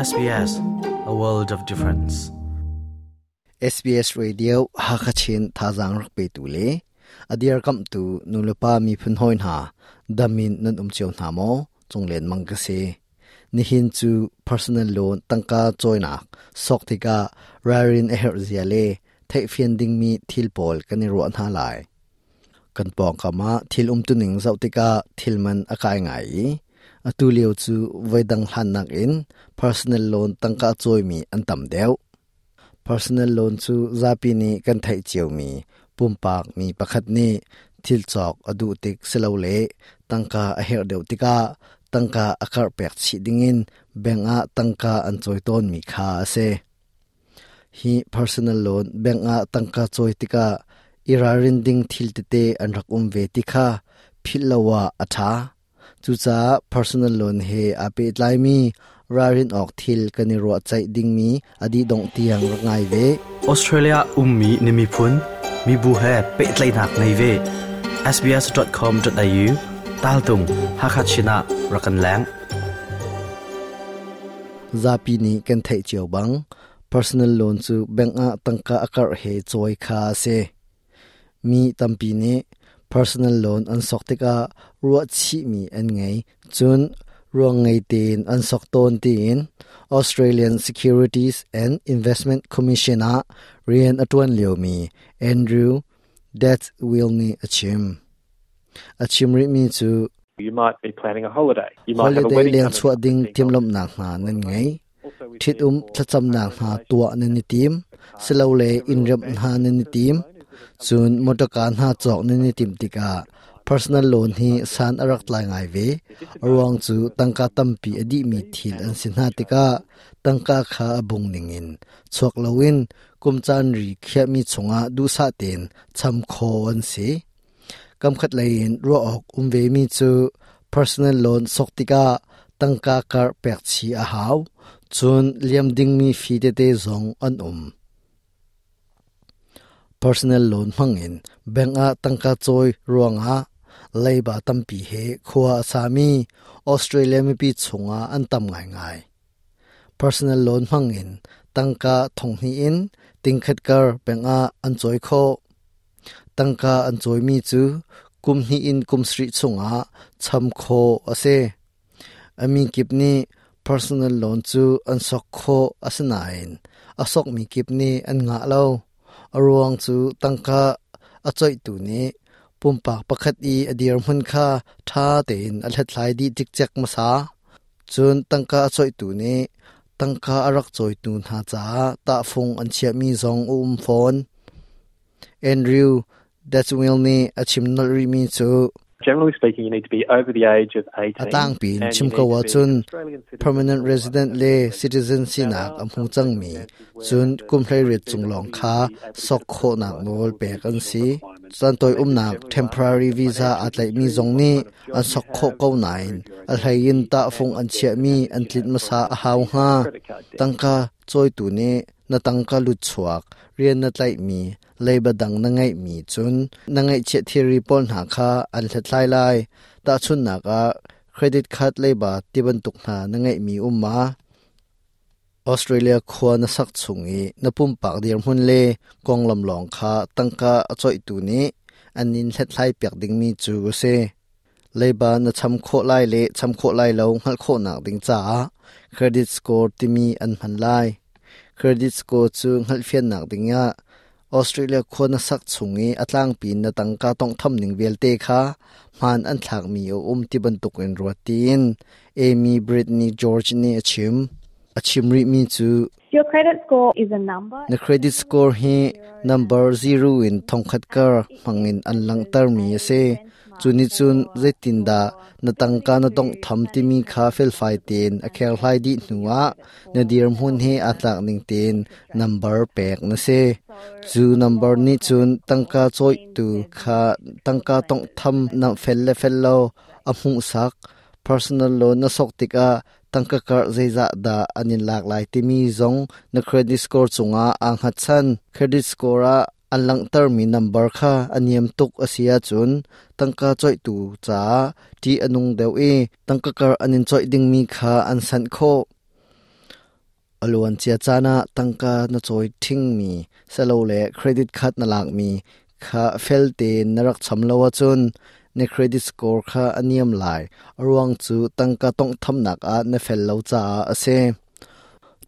SBS, a world of difference. SBS Radio Hakha Chin thazaang rak petu le a dirkamhtu nulepa miphun hawi hna damin nan um cio hna maw? Cunglen mang ka si. Nihin cu personal loan tangka cawinak sok tikah ralrin a herh zia le theihfian dingmi thil pawl kan i ruah hna lai. Kan pawngkam ah thil umtuning zoh tikah thil man a kai ngai i atu lio cu voidang hlannak in personal loan tangka cawimi an tam deuh. Personal loan cu zapi nih kan theih ciomi pumpak mi pakhat nih thil cawk a duh tik silole tangka a herh deuh tikah tangka a karh pek chih dingin bank ah tangka an cawi tawnmi kha a si. Hi personal loan bank ah tangka cawi tikah i ralrin ding thil tete an rak um ve ti kha philh lo ah a ṭha. Cucaah personal loan he aa pehtlaimi ralrin awk thil kan i ruahceih dingmi a dih dongh tiang rak ngai ve. Australia ummi na miphun, mibu he pehtlaihnak ngei ve. sbs.com.au taltung Hakha Chin ah rak kan leng. Zapi nih kan theih cio bang personal loan cu bank ah tangka a karh he cawi kha a si. Mi tampi nih personal loan an sok tikah ruahchihmi an ngei, cun ruang ngei tein an sok tawn tiin Australian Securities and Investment Commission ah rian a ṭuan liomi Andrew Deathwill nih a chim. A chim rihmi cu You might be planning a holiday. You might have a holiday wedding leng coming chuah up. ding Think of timhlamhnak hna nan ngei. Ṭhitum thlacamnak hna tuah nan i tim, silole inn remh hna nan i tim. Cun motorka hna cawk nan i timh tikah personal loan hi san a rak tlai ngai ve. A ruang cu tangka tampi a dihmi thil an si hna tikah tangka kha a bung ningin chuak loin kum caan ri khiahmi chungah duhsah tein cham khawh an si. Kamkhat lei in ruah awk um vemi cu personal loan sok tikah tangka karh pek chih a hau. Cun liam dingmi fee tete zong an um. Personal loan hmangin bank ah tangka cawi ruangah leiba tampi he khua a sami Australia mipi chungah an tam ngaingai. Personal loan hmangin tangka thonghnih in tingkhat kar bank ah an cawi khawh. Tangka an cawimi cu kum hnih in kum sarih chungah cham khawh a si. A mi kip nih personal loan cu an sok khawh asinain a sokmi kip nih an ngah lo. A ruang cu tangka a coihtu nih pumpak pakhat i a dirhmun kha ṭha tein a hlathlai dih cikcek hmasa. Cun tangka a coihtu nih tangka a rak cawitu hna caah tahfung an chiahmi zong a um fawn. Andrew Dutchwill nih a chim nolh rihmi cu Generally speaking, you need to be over the age of 18 a tlangpi in and you chim need ko to be an ahcun Australian citizen permanent or resident a le legal citizen Now, sinak there a are hmu some cangmi circumstances where cun the kum hleiriat visa cung lawng would kha be able to sok get approved khawhnak by nawl all the pek an additional si. requirements. Cantoi And they just umnak generally ask temporary for visa financial aa tlaihmi history, zong what nih kind of an job you sok khawh have, ko nain prove your a hleiin identity, tahfung and an what debt chiahmi capacity an you tlinh have hmasa from a hau the hnga. credit card debt. Tangka cawitu nih na tangka lutchuak rian na tlaihmi leiba dang na ngeihmi cun na ngeihchiah thilri pawl hna kha an hlathlai lai. Tahchunhnak ah, credit card leiba tibantuk hna na ngeihmi um ma? Australia khua na sak chung i na pumpak dirhmun le konglam lawng kha tangka a coihtu nih an in hlathlai piak dingmi cu a si. Leiba na cham khawh lai le cham khawh lai lo hngalh khawhnak ding caah credit score timi an hman lai. Credit score cu hngalhfiannak dingah Australia khua na sak chung i a tlangpi in na tangka tawnghtham ning vialte kha hmaan an thlakmi a um ti bantukin ruat tiin Amy Brittany George nih a chim. A chim rihmi cu Your credit score is a number. Na credit score hi number 0 in thongkhat kar hmangin an langhtermi a si. Cu nih cun zeitindah na tangka na tawnghtham timi kha felfai tein a kherhlai dih hnuah na dirhmun he aa tlak ning tein number pek na si. Cu number nih cun tangka cawihtu kha tangka tawnghtham na fel le fel lo a hmuhsak. Personal loan na sok tikah tangka karh zeizah dah an in lak lai timi zong na credit score cungah aa hngatchan. Credit score ah an langhtermi number kha a niam tuk a si ahcun tangka coihtu caah ṭih a nung deuh i tangka karh an in coih dingmi kha an sanh khawh. A luancia caan ah tangka na cawi ṭhingmi silole credit card na lakmi kha fel tein na rak cham lo ahcun na credit score kha a niam lai. A ruang cu tangka tawnghthamnak ah na fel lo caah a si.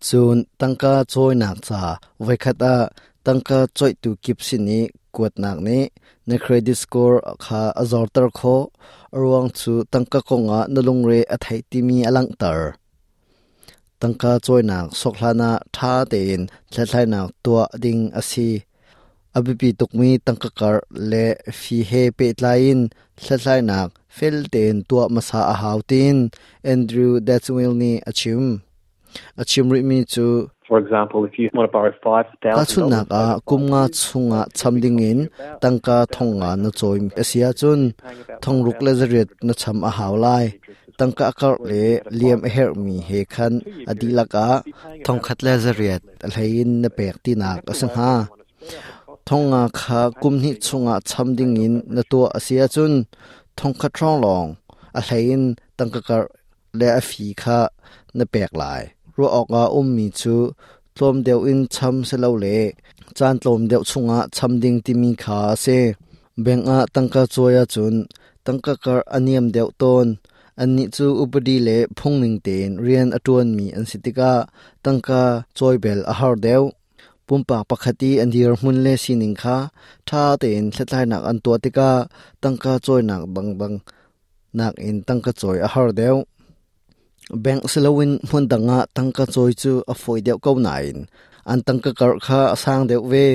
Cun tangka cawinak ca voikhat ah tangka cawihtu kip sin i kuatnak nih na credit score kha a zorter khawh. A ruang cu tangka kongah na lungre a theih timi a langhter. Tangka cawinak sok hlanah ṭha tein hlathlainak tuah ding a si. A biapi tukmi tangka karh le fee he pehtlai in hlathlainak fel tein tuah hmasa a hau tiin Andrew Dadswell nih a chim. A chim rihmi cu For example, if you want to borrow $5,000 Tahchunhnak ah, kum nga chungah cham dingin tangka thong nga na cawi a si ahcun thong ruk le zariat na cham a hau lai. Tangka a karh le liam a herhmi he khan a dihlak ah thong khat le zariat a hlei in na pek tinak a si hnga. Thong nga kha kum hnih chungah cham dingin na tuah a si ahcun thong khat hrawng lawng a hlei in tangka karh le a fi kha na pek lai. Ruah awkah ummi cu tlawm deuh in cham silole caan tlawm deuh chungah cham ding timi kha a si. Bank ah tangka cawi ahcun tangka karh a niam deuh tawn. Annih cu upadi le phungning tein rian a ṭuanmi an si tikah tangka cawi bel a har deuh. Pumpak pakhat i an dirhmun le sining kha ṭha tein hlathlainak an tuah tikah tangka cawinak dangdang nakin tangka cawi a har deuh. Bank siloin hmun dang ah tangka cawi cu a fawi deuh ko nain an tangka karh kha a sang deuh ve.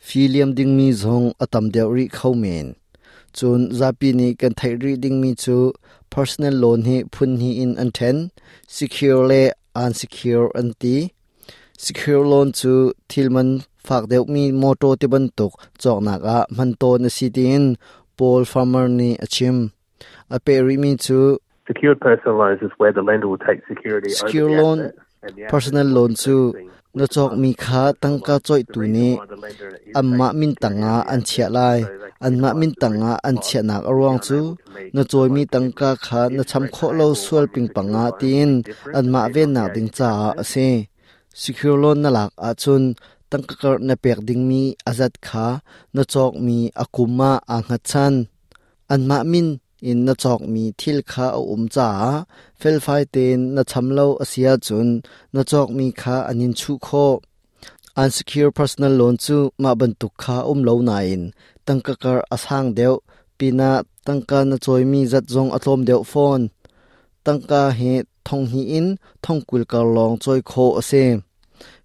Fee liam dingmi zong a tam deuh rih kho men. Cun zapi nih kan theih rih dingmi cu personal loan hi phun hnih in an ṭhen. Secure le unsecure an ti. Secure loan cu thil man fak deuhmi mawṭaw tibantuk cawknak ah hman tawn a si tiin Paul Farmer nih a chim. A peh rihmi cu Secured personal loans is where the lender will take security over Secure the loan asset and the asset personal is loan cu increasing na with the cawkmi monthly kha interest. tangka The cawihtu reason nih why the lender is anmah taking min security tangah over the an asset chiah is lai. so they can Anmah minimize min the risk tangah of an loss chiahnak a and be ruang cu unable to meet na the cawimi loan tangka commitment. kha The na interest cham rate khawh lo payable sual on your pingpang secured ah loan will tiin be different anmah depending on the vennak age ding of the caah a asset. si. Secure loan na lak ahcun tangka karh na pek dingmi a zat kha na cawkmi a kum ah aa hngatchan. Anmah min in na cawkmi thil kha a um caah felfai tein na cham lo a si ahcun na cawkmi kha an in chuh khawh. Unsecure personal loan cu mah bantuk kha um lo nain tangka kar a sang deuh pinah tangka na cawimi zat zong a tlawm deuh fawn. Tangka hi thong hnih in thong 20 kar lawng cawi khawh a si.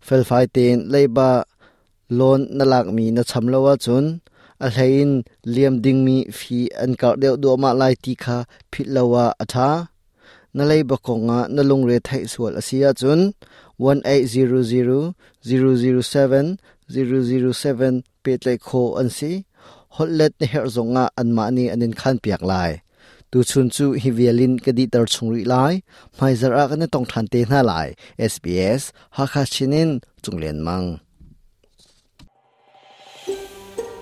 Felfai tein leiba loan na lakmi na cham lo ahcun a hlei in liam dingmi fee an karh deuh duahmah lai ti kha philh lo ah a ṭha. Na leiba kongah na lungre theih sual a si ahcun 1800 007 007 pehtlaih khawh an si. Holhlet na herh zongah anmah nih an in khanpiak lai. Tuchun cu hi vial in ka dihter chung rih lai. Hmaizarh ah kan i tong ṭhan te hna lai. SBS Hakha Chin in Cunglen Mang.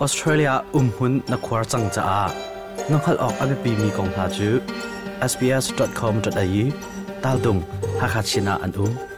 Australia umhmun na khuar cang caah na hngalh awk a biapimi kong hna cu sbs.com.au tal dung Hakha Chin ah an um.